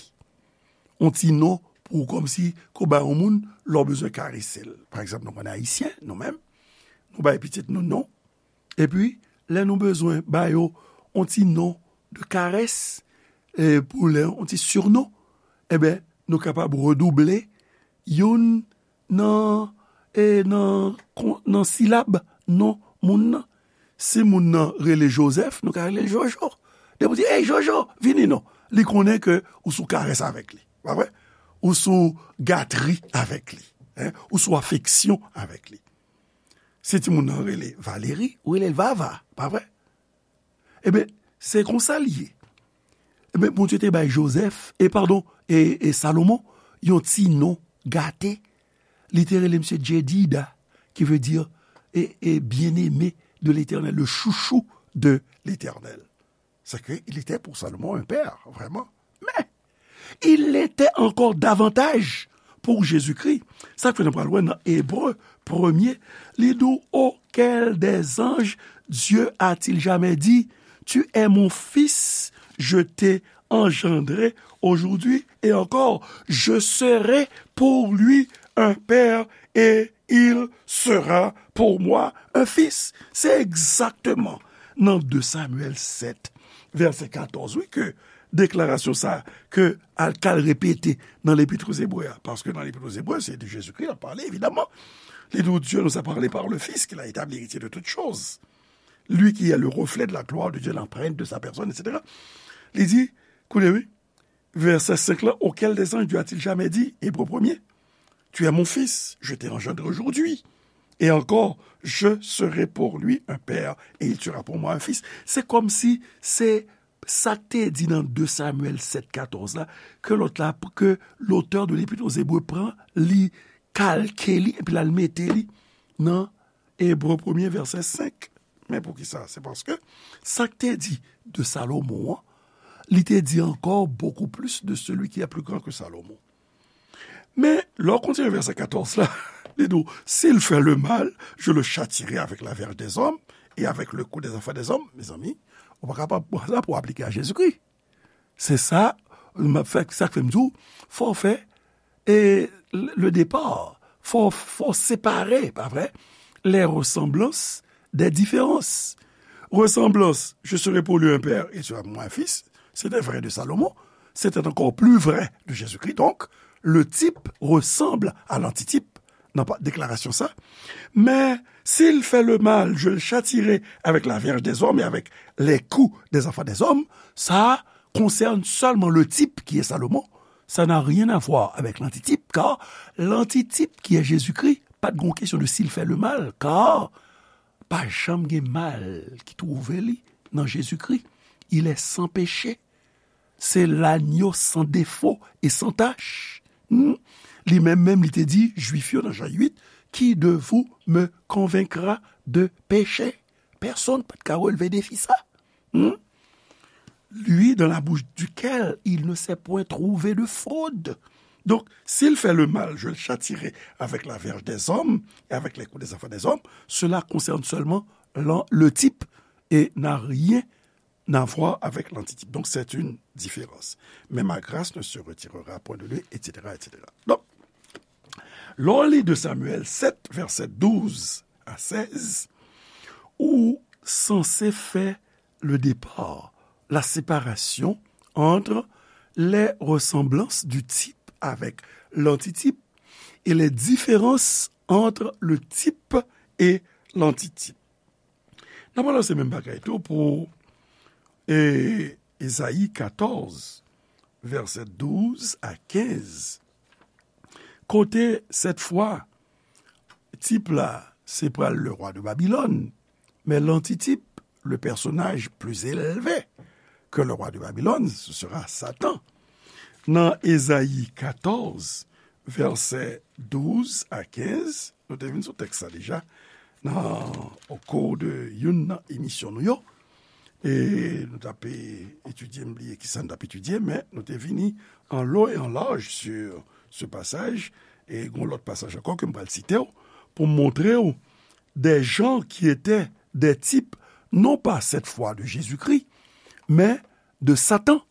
yon ti non pou kòmsi ke w bay yon moun lè w bezwen karese l. Pa egzanp, nou konn Ayisyen, nou menm, nou bay pitit nou non, epi lè nou bezwen ba yo yon ti non de karès, e pou lè yon ti sinon, enben, nou kapab redouble youn nan, e nan, kon- nan silab non moun nan. Si moun nan rele Jozèf, nou ka rele l Jojo. Depi w di, "Ey, Jojo, vini non." Li konnen ke ou sou karès avèk li, pa vre? Ou sou gatri avèk li, en? Ou sou afeksyon avèk li. Si timoun nan rele Valeri, ou rele l Vava, pa vre? Ebyen, se konsa l ye. Ebyen, Bondye te bay Jozèf, e padon, e, e Salomon, yon ti non gate. Li te rele misye Jedida, ki vle di, e, e bien-aimé de l'Éternel, le chouchou de l'Éternel. C'est que il était pour Salomon un père, vraiment. Mais il l'était encore davantage pour Jésus-Christ. Sa k fè nou pral wè nan Ebre premye, li di w, Auquel des anges Dieu a-t-il jamais dit, Tu es mon fils, je t'ai engendré aujourd'hui, et encore, je serai pour lui un père et il sera pour moi un fils. Se egzakteman nan de Samyèl sèt, vèsè katòz, wi, ke deklarasyon sa a, ke al, k al repete nan Lepit o Zebre a. Paske nan Lepit o Zebre, se de Jezikri l ap pale, evidaman. Li di w, Dieu nous a parlé par le Fils, qu'il a établi héritier de toutes choses. Lui qui est le reflet de la gloire de Dieu, l'empreinte de sa personne, et cetera. Li di, koute, wi, vèsè senk la, Auquel des anges Dieu a-t-il jamais dit, Hébreu premier, Tu es mon fils, je t'ai engendré aujourd'hui. Et encore, je serai pour lui un père, et il sera pour moi un fils. Se kòmsi se sa k te di nan de Samyèl sèt katòz la, ke lòt la, ke lotè de Lepit o Zebre pran, li kalke li, epi l al mete li nan Ebre premye vèsè senk. Men poukisa? Se paske sa k te di de Salomon an, li te di encore beaucoup plus de celui qui est plus grand que Salomon. Men, lè w kontinye vèsè katòz la, li di w, S'il fait le mal, je le châtierai avec la verge des hommes et avec le cou des enfants des hommes. Mezanmi, ou pa kapab pran sa pou aplike a Jezikri. Se sa, m ap fè, sa k fè m di w, fò w fè, e, le départ, fò, fò w separe, pa vre, les ressemblances des différences. Ressemblance, je serai pour lui un père et tu seras pour moi un fils, c'était vrai de Salomon, c'était encore plus vrai de Jésus-Christ. Donc, le type ressemble à l'antitype. Nan pa, deklarasyon sa. Mais s'il fait le mal, je le châtierai avec la verge des hommes et avec les coups des enfants des hommes. Ça concerne seulement le type qui est Salomon. Ça n'a rien à voir avec l'antitype, car l'antitype qui est Jésus-Christ, pa t gon kesyon de s'il fait le mal, car pa janm gen mal ki twouve li nan Jezikri. Il est sans péché. C'est l'agneau sans défaut et sans tache. Hmm? Li menm menm, li te di Jwif yo nan Jan uit, Qui de vous me convaincra de péché? Pèsonn pa t ka relve defi sa. Hmm? Lui dans la bouche duquel il ne s'est point trouvé de fraude. Donc, s'il fait le mal, je le châtierai avec la verge des hommes et avec les coups des enfants des hommes. Cela concerne seulement l'an- le type et n'a rien à voir avec l'antitype. Donc, c'est une différence. Mais ma grâce ne se retirera point de lui, et cetera, et cetera. Donk, lè w li de Samyèl sèt, vèsè douz a sèz, ou sanse fè le départ, la séparation entre les ressemblances du type avec l'antitype et les différences entre le type et l'antitype. N ap balanse menm bagay tou pou, e, Ezayi katòz, vèsè douz a kenz. Kote, sèt fwa, tip la, se pral le roi de Babylone, men l'antitype, le personnage plus élevé que le roi de Babylone, ce sera Satan. Nan Ezayi katòz, vèsè douz a kenz, nou te vin sou tèks sa deja, nan, au cours de youn nan emisyon nou yo. E nou t ap etidye, m bliye ki sa n t ap etidye, men nou te vini en long et en large sur ce passage, e gon lòt pasaj ankò ke m pral site w, pou m montre w des gens qui étaient des types, non pas cette fois de Jésus-Christ, mais de Satan.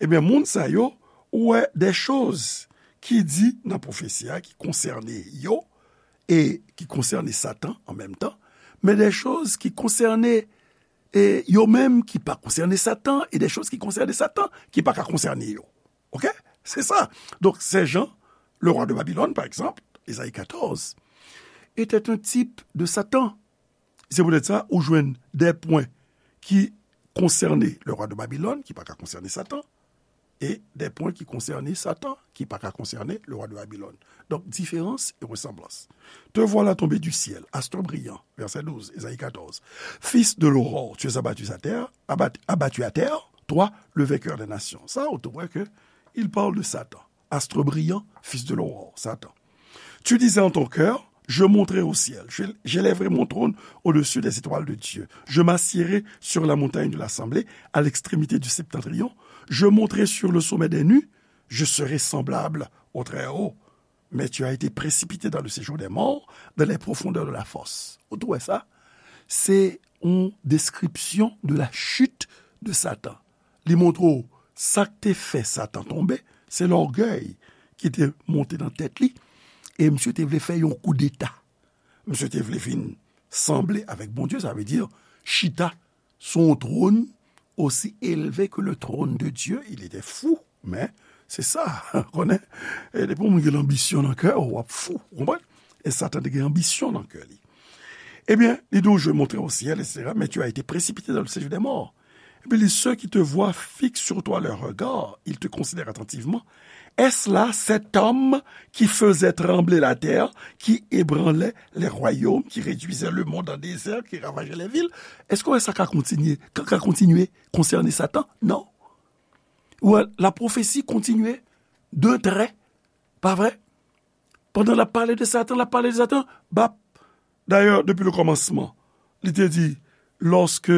Ebyen, moun sa yo, ou wè des choses ki di nan pwofesi a, ki konsène yo, e ki konsène Satan an menm tan, men des choses ki konsène e yo menm ki pa konsène Satan, e des choses ki konsène Satan, ki pa ka konsène yo. Oke? Se sa. Donk, ces gens, le roi de Babylone, par exemple, Ezayi katòz, était un type de Satan. Se poutèt sa, ou jwenn des points ki konsène le roi de Babylone, ki pa ka konsène Satan, e des points ki konsène Satan, ki pa ka konsène le roi de Babylone. Donk, différence et ressemblance. Te voilà tombé du ciel, astre brillant, verset douze, Ezayi katòz. Fils de l'aurore, tu es abattu à terre, abat- abattu à terre, toi, le vainqueur des nations. Sa, ou te wè ke il parle de Satan. Astre brillant, fils de l'aurore, Satan. Tu disais en ton cœur, je monterai au ciel, je- j'élèverai mon trône au-dessus des étoiles de Dieu. Je m'assiérai sur la montagne de l'assemblée, à l'extrémité du septentrion. Je monterai sur le sommet des nues, je serai semblable au Très-Haut. Mais tu as été précipité dans le séjour des morts, dans les profondeurs de la fosse. Ou te wè sa? Se yon description de la chute de Satan. Li montre w sa k te fè Satan tonbe, se lògèy ki te monte nan tèt li, e misye te vle fè yon koudeta. Misye te vle vin sanble avèk Bondye, sa vle di chita sou yon twòn osi elve ke le trône de Dieu. Il était fou, men se sa, konnen, e depi yon moun gen lanbisyon nan kè w, w ap fou, ou konprann? E Satan te gen anbisyon nan kè li. Ebyen, li di w, je monterai au ciel, et cetera, mais tu as été précipité dans le séjour des morts. Epi li, ceux qui te voient fixent sur toi leur regard, ils te considèrent attentivement. Est-ce là cet homme qui faisait trembler la terre, qui ébranlait les royaumes, qui réduisait le monde en désert, qui ravageait les villes? Èske w wè sa ka kontinye, ka, ka kontinye konsène Satan? Non. Ou wè, la pwofesi kontinye d'un trait, pa vre? Pandan l ap pale de Satan, l ap pale de Satan, bap. D'ailleurs, depuis le commencement, li te di, lorsque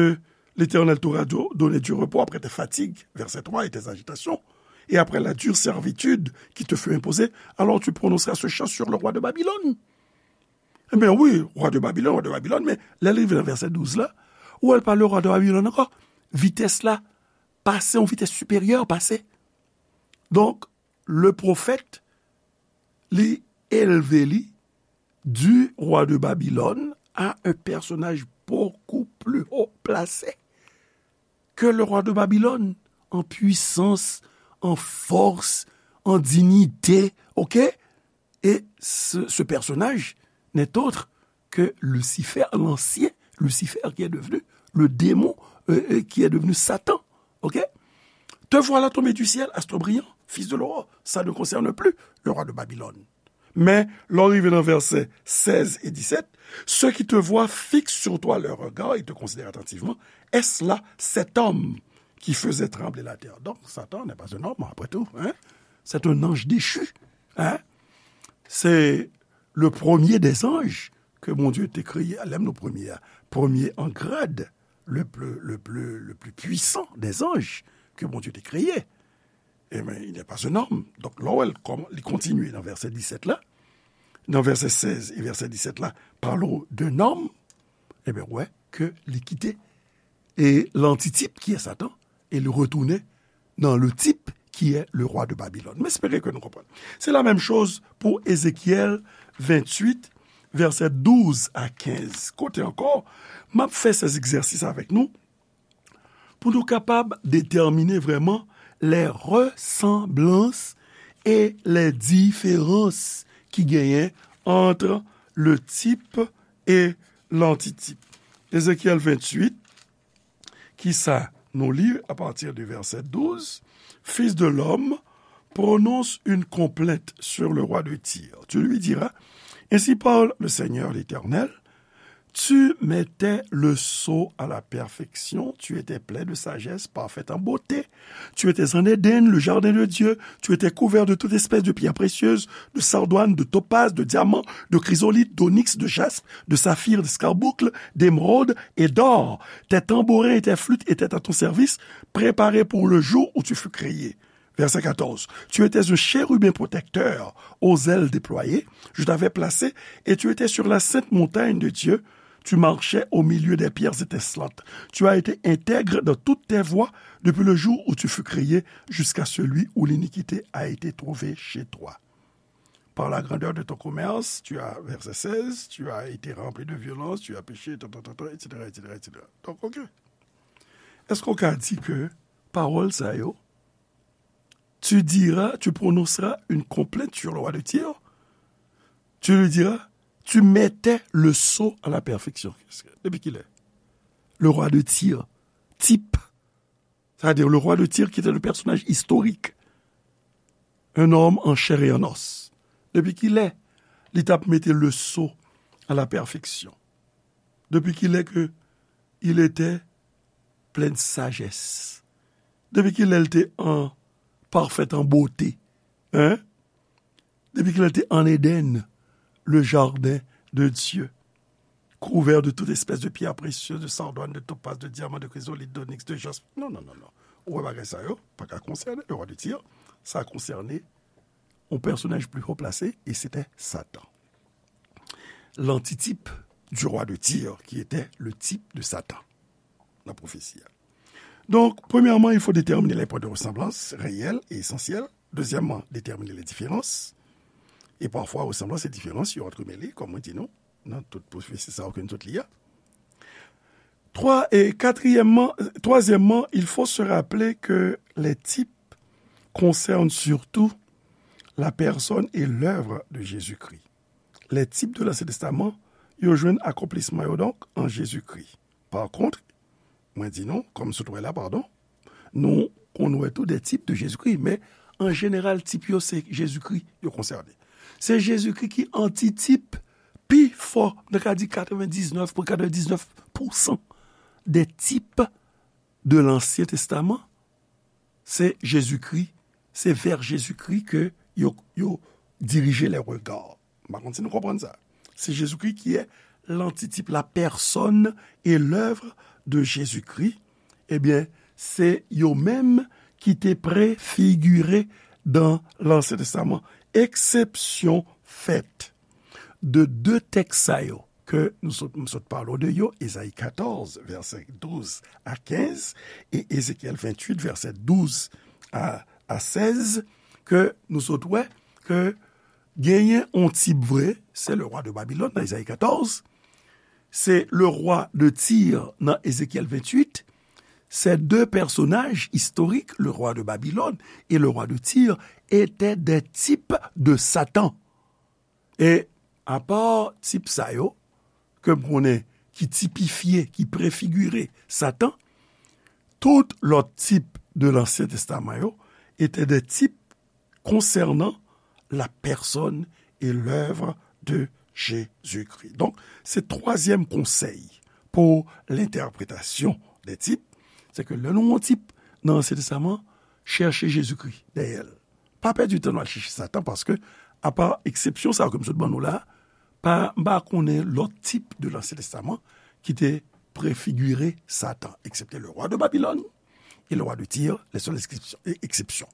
l'Éternel t'aura do- donné du repos après tes fatigues, verset trois, et tes agitations, et après la dure servitude qui te fut imposée, alors tu prononceras ce chant sur le roi de Babylone. Ebyen wi, roi de Babylone, roi de Babylone, men lè l rive nan vèsè douz la, ou wè l pale roi de Babylone ankò, vitès la pase, yon vitès siperyè pase. Donk, le pwofèt, li elve li du roi de Babylone à un personnage beaucoup plus haut placé que le roi de Babylone, en puissance, en force, en dignité, ok? Et ce, ce personnage n'est autre que Lucifer, l'ancien Lucifer qui est devenu le démon, euh, euh, qui est devenu Satan. Ok? Te voilà tombé du ciel, astre brillant, fils de l'aurore. Ça ne concerne plus le roi de Babylone. Men, lè w rive nan vèsè sèz e disèt, ceux qui te voient fixent sur toi leur regard et te considèrent attentivement. Est-ce là cet homme qui faisait trembler la terre? Donc, Satan n'est pas un homme, après tout, hein? C'est un ange déchu, hein? C'est le premier des anges que Bondye te kreye, lè m di premye a, premye an grad, le plus, le plus, le plus puissant des anges que Bondye te kreye. Ebyen, il n'est pas un homme. Donk, lè w wè l kòm li kontinye nan vèsè disèt la, nan vèsè sèz e vèsè disèt la, pale w d'un homme, ebyen, w wè ke li kite e l'antitype qui est Satan, e li retounen nan le type qui est le roi de Babylone. M espere ke nou konprann. Se la menm choz pou Ezekyèl venntuit, vèsè douz a kenz. Kote ankò, m ap fè sèz egzèsis avèk nou pou nou kapab detèmine vrèman les ressemblances et les différences ki genyen entre le type et l'antitype. Ezekyèl venntuit, ki sa nou li à partir du verset douze, Fils de l'homme, prononce une complainte sur le roi de Tyr. Tu lui diras, ainsi parle le Seigneur l'Éternel, Tu mettais le sceau à la perfection, tu étais plein de sagesse, parfait en beauté. Tu étais en Éden, le jardin de Dieu, tu étais couvert de toute espèce de pierres précieuses, de sardoines, de topazes, de diamants, de chrysolites, d'onyx, de jaspe, de saphir, d'escarboucle, d'émeraude et d'or. Tes tambourins et tes flûtes étaient à ton service, préparés pour le jour où tu fus créé. Verset quatorze. Tu étais un chérubin protecteur aux ailes déployées. Je t'avais placé et tu étais sur la sainte montagne de Dieu. Tu marchais au milieu des pierres étincelantes. Tu as été intègre dans toutes tes voies depuis le jour où tu fus créé jusqu'à celui où l'iniquité a été trouvée chez toi. Par la grandeur de ton commerce, tu as, verset seize, tu as été rempli de violence, tu as péché, tan, tan, tan, tan, et cetera, et cetera, et cetera. Donc, ok. Est-ce qu'on a dit que parole ça yo, tu diras, tu prononceras une complainte sur le roi de Tyr, tu lui diras, tu mettais le sceau à la perfection. Depi kilè? Le roi de Tyr, type, c'est-à-dire le roi de Tyr qui était le personnage historique, un homme en chair et en os. Depi kilè li t ap mete le sceau à la perfection? Depi kilè ke il était plein de sagesse? Depi kilè l te an parfait en beauté? Hein? Depi kilè l te an Éden, le jardin de Dieu, couvert de toute espèce de pierres précieuses, de sardoines, de topazes, de diamants, de chrysolites, d'onyx, de jaspe. Non, non, non, non. Ou wè bagay sa yo, pa ka konsène le roi de Tyr. Sa konsène yon pèsonaj pli wo plase, e se te Satan. L'antitype du roi de Tyr, qui était le type de Satan. Nan pwofesi a. Donc, premièrement, il faut déterminer les points de ressemblance réels et essentiels. Deuxièmement, déterminer les différences. Et parfois, ressemblance et différence, yo antremele, kòm mwen di nou, nan tout pwofesi sa yo ke nou sot li a. Trois, et quatrièmement, troisièmement, il faut se rappeler que les types concernent surtout la personne et l'œuvre de Jésus-Christ. Les types de l'Ancien Testament, yo jwenn akonplisman yo donk an Jezikri. Pa kont, mwen di nou, kòm sot wè la, padon, nou konn wè tou de type de Jésus-Christ, men an jeneral, type yo se Jezikri yo konsène. Se Jezikri ki antitip pi fò, nou ka di katrevendisnèf pwen katrevendisnèf pousan de type de l'Ancien Testament, se Jezikri, se vè Jezikri ke yo, yo dirije lè rega. M pa konn si nou konprann sa. Se Jezikri ki è lantitype, la personne et l'œuvre de Jésus-Christ. Ebyen, se yo menm ki te prefigire dan Lansyen Testaman. Eksepsyon fèt de de tèks sa yo ke nou sot, m sot pale w de yo, Ezayi katòz, vèsè douz a kenz, e Ezekyèl venntuit, vèsè douz a, a sèz, ke nou sot wè ke genyen on tip vre, se le roi de Babylone nan Ezayi katòz, se le roi de Tyr nan Ezekyèl venntuit, ces deux personnages historiques, le roi de Babylone et le roi de Tyr, étaient des types de Satan. E apa tip sa yo, ke m konnen ki tipifye, ki prefigire Satan, tout lòt tip de Lansyen Testaman yo étaient des types concernant la personne et l'œuvre de Jésus-Christ. Donk, se twazyèm konsèy pou lentèpretasyon de tip, se ke lè nou wè yon tip nan Ansyen Testaman, chèche Jezikri dèyè l. Pa pèdi tan nou al chèche Satan, paske, apa eksepsyon sa yo ke m sot ban nou la, pa, m pa konnen lòt tip de Lansyen Testaman ki te prefigire Satan, eksepte le roi de Babylone et le roi de Tyr, les seules exceptions, e, eksepsyon.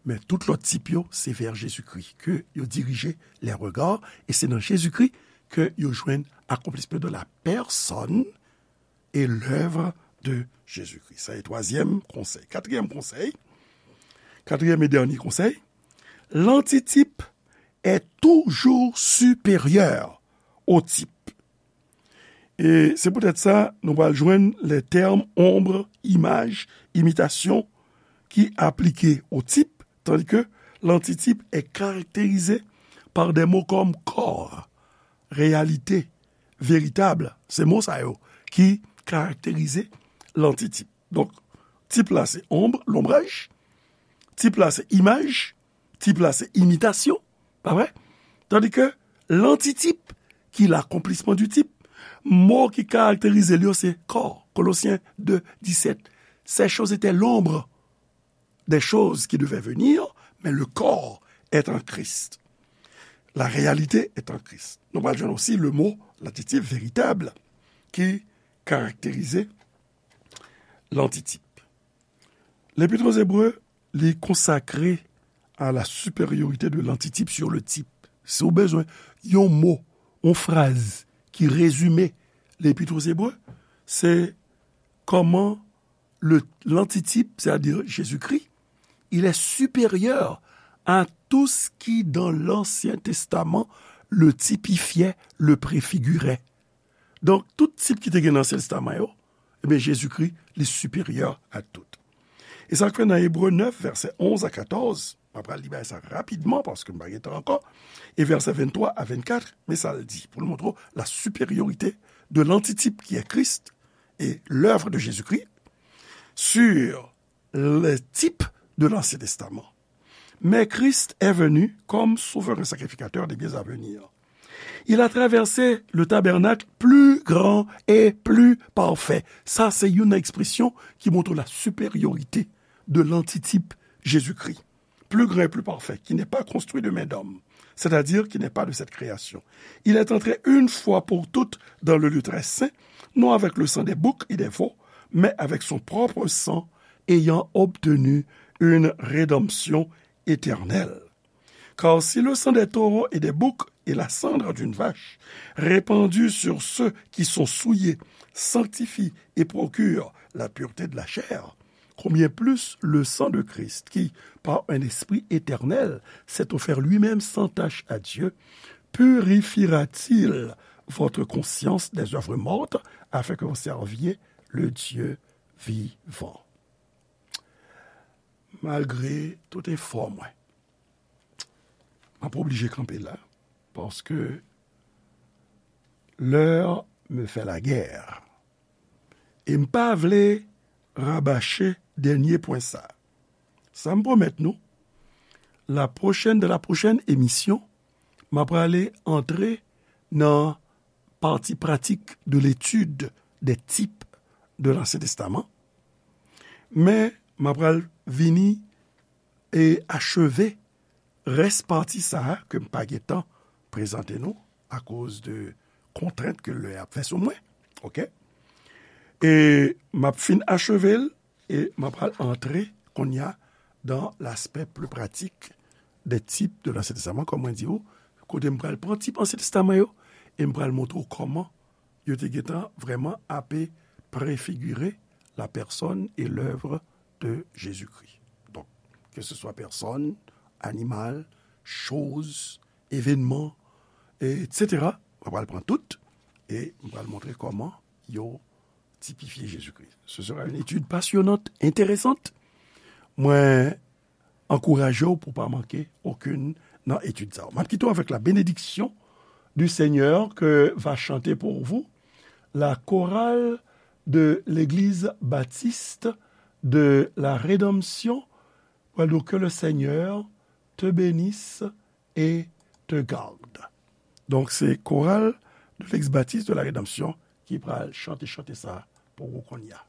Men tout lòt tip yo, se vè Jezikri ke yo dirije lè rega, e se nan Jezikri ke yo jwenn akonplisman de la personne et l'œuvre de Jésus-Christ. Sa se twazyèm konsèy. Katriyèm konsèy, katriyèm e dènye konsèy, l'antitype est toujours supérieur au type. E se poutèt sa, nou pral jwenn les termes ombre, image, imitation, ki aplike au type, tandis que l'antitype est caractérisé par des mots comme corps, réalité, véritable. Se mo sa yo ki karakterize l'antitype. Donk, tip la se ombre, l'ombrage, tip la se imaj, tip la se imitasyon, pa vre? Tandis que l'antitype, qui est l'accomplissement du type, Mo ki karakterize l yo se kò. Kolosyen de disèt. Ces choses étaient l'ombre des choses qui devaient venir, mais le corps est en Christ. La réalité est en Christ. Nou pral jwenn osi le mo, l'adjectif véritable, ki karakterize lantitip. Lepit aux Hébreux, li konsakre à la supériorité de l'antitype sur le type. Si w bezwen yon mo, yon fraz ki rezime Lepit aux Hébreux, se kòman le, l'antitype, c'est-à-dire Jésus-Christ, il est supérieur à tout ce qui dans l'Ancien Testament le typifiait, le préfigurait. Donk, tout tip ki te gen nan Ansyen Testaman yo, ebyen, Jezikri, li siperyè a tout. E sa k fè nan Ebre nèf, vèsè onz a katòz, m ap pral li bagay sa rapidman, paske m pa gen tan ankò, e vèsè venntwa a vennkat, men sa l di, pou l montre w la supériorité de l'antitype qui est Christ et l'œuvre de Jésus-Christ sur le type de l'Ancien Testament. Mais Christ est venu comme souverain sacrificateur des biens à venir. Il a traversé le tabernacle plus grand et plus parfait. Sa, se youn nan ekspresyon ki montre la supériorité de l'antitype Jésus-Christ. Plus grand et plus parfait, qui n'est pas construit de main d'homme, c'est-à-dire qui n'est pas de cette création. Il est entré une fois pour toutes dans le lieu très saint, non avec le sang des boucs et des veaux, mais avec son propre sang, ayant obtenu une rédemption éternelle. Car si le sang des taureaux et des boucs et la cendre d'une vache répandue sur ceux qui sont souillés sanctifie et procure la pureté de la chair, combien plus le sang de Christ qui, par un esprit éternel, s'est offert lui-même sans tache à Dieu, purifiera-t-il votre conscience des œuvres mortes afin que vous serviez le Dieu vivant. Malgre tout efò mwen, m ap oblije kanpe la, paske l'heure me fait la guerre. E m pa vle rabache dènye pwen sa. Sa m pwomèt nou, la prochaine, dans la prochaine émission, m ap prale antre nan partie pratique de l'étude des types de l'Ancien Testament. Men, m ap pral vini e acheve rès pati sa a ke m pa gen tan prezante nou akoz de kontrent ke lè ap fè sou mwen. Oke? E m ap fin acheve l e m ap pral antre kounye a dans l'aspect plus pratique des types de l'Ancien Testament, kòm mwen di w, kote m pral pran tip Ansyen Testaman yo e m pral montre w kòman yo te gentan vrèman ape prefigire la personne et l'œuvre de Jésus-Christ. Donk, ke se swa pèsòn, animal, choz, evènman, etsetera, mwen pral pran tout e mwen pral montre kòman yo tipifye Jezikri. Ce sera une étude passionnante, intéressante. Mwen ankouraje w pou w pa manke okenn nan etid sa yo. M ap kite w avec la bénédiction du Seigneur que va chanter pour vous la chorale de l'église baptiste de la Rédemption. Pral di w, que le Seigneur te bénisse et te garde. Donk, se koral de l'Eglise Baptiste de la Rédemption ki pral chante chante sa pou ou kounye a.